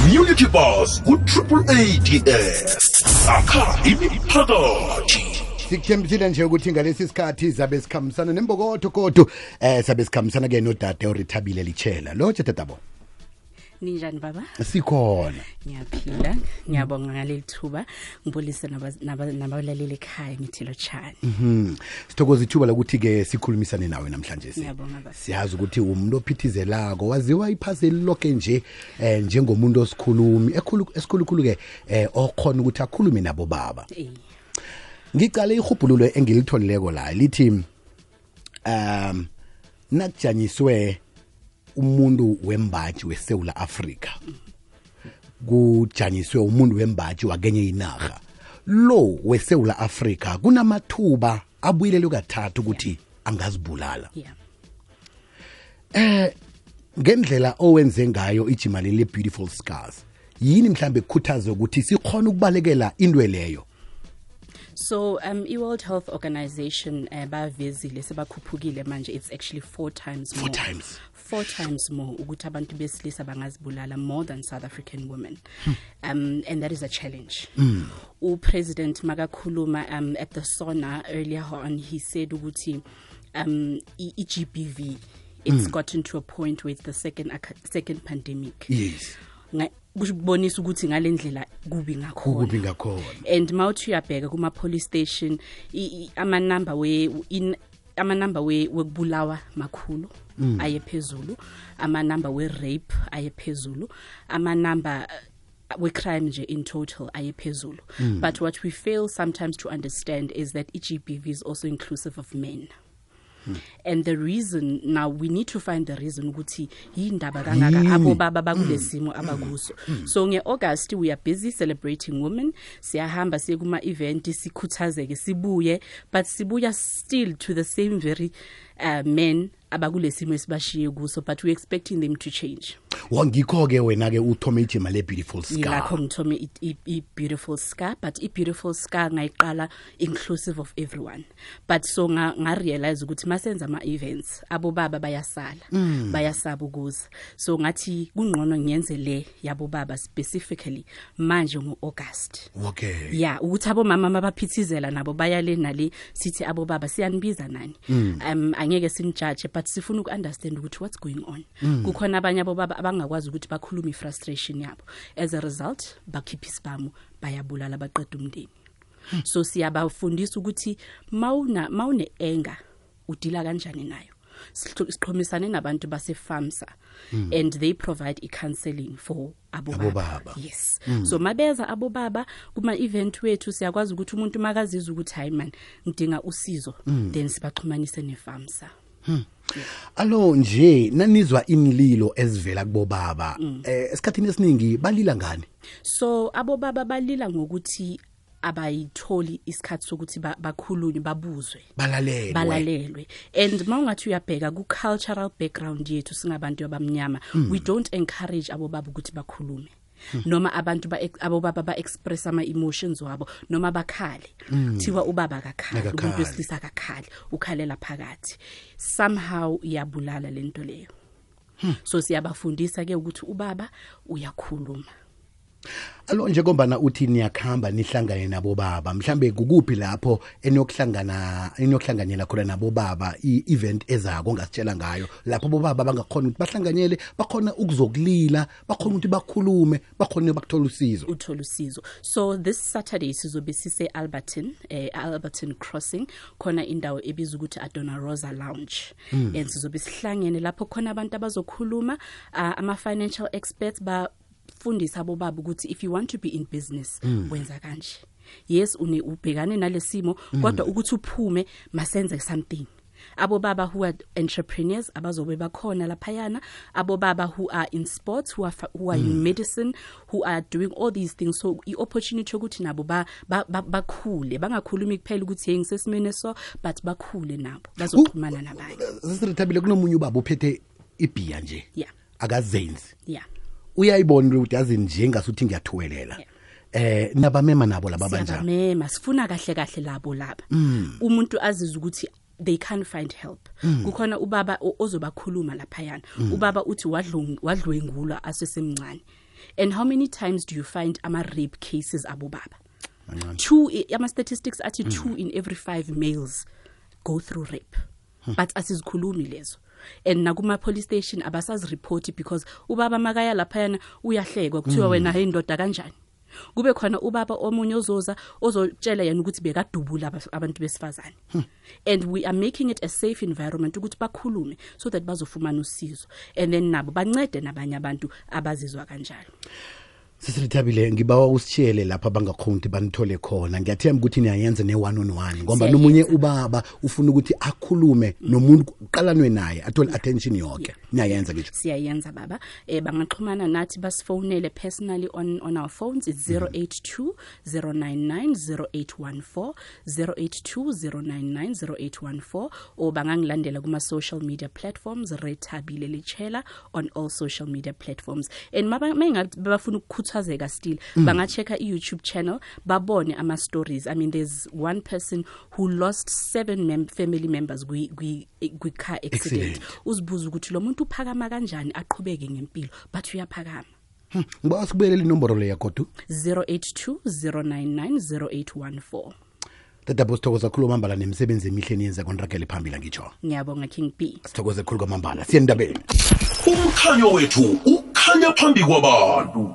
Community Bus ku-AADS sakha imiphakathi. Sikuthembisile nje ukuthi ngalesi sikhathi zabe sikhambisana nembokotho kodwa sabe sikhambisana ke nodade oRithabile Lichela. Lo tatabo. Ninjani baba? Sikhona. Ngiyaphila, ngiyabonga ngaleli thuba, ngibulise nabalaleli ekhaya ngithilo tshani. Sithokoza ithuba lokuthi ke sikhulumisane nawe namhlanje Ngiyabonga baba. Siyazi ukuthi umuntu ophithizelako waziwa iphazeli lonke nje njengomuntu osikhulumi esikhulukhulu ke okhona ukuthi akhulume nabo baba. Ngicale ihubhululo engilitholileko la lithi nakujanyiswe umuntu wembaji weSouth Africa kujanyiswe umuntu wembaji wakenye inarha lo weSouth Africa kunamathuba abuyilelo kathathu ukuthi angazibulala ngendlela owenze ngayo ijimali le Beautiful Scars yini mhlambe kukhuthaza ukuthi sikhona ukubalekela indwe leyo. So i-World Health Organization bavezile sebakhuphukile manje it's actually 4 times more. 4 times more ukuthi abantu besilisa bangazibulala more than South African women. And that is a challenge. President Magakhuluma at the SONA earlier on he said ukuthi GBV it's gotten to a point where it's the second pandemic. Yes. Kubonisa ukuthi ngalendlela kubi ngakhona and mawuthi uyabheka kuma police station ama number we wekubulawa makhulu ayephezulu ama number we rape ayephezulu ama number we crime nje in total ayephezulu but what we fail sometimes to understand is that GBV is also inclusive of men. And the reason now we need to find the reason ukuthi yindaba kangaka abo baba bakulesimo abakuso. So ngeAugust we are busy celebrating women. Siyahamba siye kuma event sikhuthazeke sibuye but sibuya still to the same very men abakulesimo esibashiye kuso but we expecting them to change. Wangikho ke wena ke uthome ijima le Beautiful Scar. Yilakho ngithome I Beautiful Scar but I Beautiful Scar ngayiqala inclusive of everyone. But so nga realize ukuthi masenza ama events abo baba bayasala bayasaba ukuza. So ngathi kungqono ngiyenze le yabo baba specifically manje ngoAugust. Okay. Yeah, ukuthi abo mama mabaphithizela nabo bayale nale sithi abo baba siyanibiza nani. Angeke simjudge but sifuna ukunderstand ukuthi what's going on. Kukhona abanye abo baba abangakwazi ukuthi bakhulume frustration yabo. As a result bakhipha isibhamu bayabulala baqeda umndeni. So siyabafundisa ukuthi mawune anger udila kanjani nayo. Siqhomisane nabantu base FAMSA and they provide counseling for abo baba. Yes. So mabeza abo baba kuma event wethu siyakwazi ukuthi umuntu makazizwa ukuthi hayi man ngidinga usizo then sibaxhumanise neFAMSA. Alo nje nanizwa imlilo ezivela kubo baba esikhathini esiningi balila ngani? So abo baba balila ngokuthi abayitholi isikhathi sokuthi bakhulunywe babuzwe balalelwe and mawungathi uyabheka ku cultural background yethu singabantu abamnyama we don't encourage abo baba ukuthi bakhulume noma abantu abo baba ba express ama emotions wabo noma bakhale thiwa ubaba akakhali umuntu wesilisa akakhali ukhalela phakathi somehow iyabulala lento leyo. So siyabafundisa ke ukuthi ubaba uyakhuluma. Alo nje ngombana uthi niyakhamba nihlangane nabo baba mhlambe kukuphi lapho enokuhlanganyela khona nabo baba i-event ezako ngasitshela ngayo lapho abo baba bangakhona ukuthi bahlanganyele bakhona ukuzokulila bakhona ukuthi bakhulume bakhona bakuthola usizo. So this Saturday sizobe sise Alberton Crossing khona indawo ebizwa ukuthi Adona Rosa Lounge and sizobe sihlangene lapho khona abantu abazokhuluma ama financial experts fundisa abo baba ukuthi if you want to be in business wenza kanje. Yes ubhekane nalesimo kodwa ukuthi uphume masenze something. Abo baba who are entrepreneurs abazobe bakhona laphayana abo baba who are in sports who are in medicine who are doing all these things so i-opportunity ukuthi nabo bakhule bangakhulumi kuphela ukuthi hey ngisesimene so but bakhule nabo bazoxhumana nabanye. Sisithabile kunomunye ubaba uphethe ibhiya nje akazenzi. Yeah. Uyayibona ukuthi yazi nje ngasuthi ngiyathuwelela. Nabamema nabo laba banjani? Siyabamema sifuna kahle labo laba. Umuntu azizwe ukuthi they can't find help. Kukhona ubaba ozobakhuluma laphayana. Ubaba uthi wadlwengulwa asesemncane. And how many times do you find ama-rape cases abobaba? Two, ama-statistics athi 2 in every 5 males go through rape. But asizikhulumi lezo. And nakuma police station abasazireport because ubaba makaya laphayana uyahlekwa kuthiwa wena hey ndoda kanjani. Kube khona ubaba omunye ozotshela yena ukuthi bekadubula abantu besifazane. And we are making it a safe environment ukuthi bakhulume so that bazofumana usizo. And then nabo bancede nabanye abantu abazizwa kanjalo. Sisithabile ngibawa usitshele lapha bangakhonti banithole khona. Ngiyathemba ukuthi niyayenza ne1 on 1 ngoba nomunye ubaba ufuna ukuthi akhulume nomuntu uqalanwe naye athole attention yonke. Niyayenza ngisho. Siyayenza baba. Bangaxhumana nathi basifonele personally on our phones. It's 082 099 0814 082 099 0814 or bangangilandela kuma social media platforms Rethabile Letshela on all social media platforms. And mengathi bafuna ukukhuthazeka still bangachecka iYouTube channel babone ama stories. I mean there's one person who lost 7 family members kwi car accident. Uzibuza ukuthi lo muntu uphakama kanjani aqhubeke ngempilo but uyaphakama. Ngiba sikubelele inombolo le yakho 082 099 0814. Tata Bosithokoza khulu kwamambala nemisebenzi emihle niyenza kontrakele phambili ngitsho. Ngiyabonga King B. Sithokoze khulu kwamambala. Siyendabeni. Umkhanyo wethu ukhanya phambi kwabantu.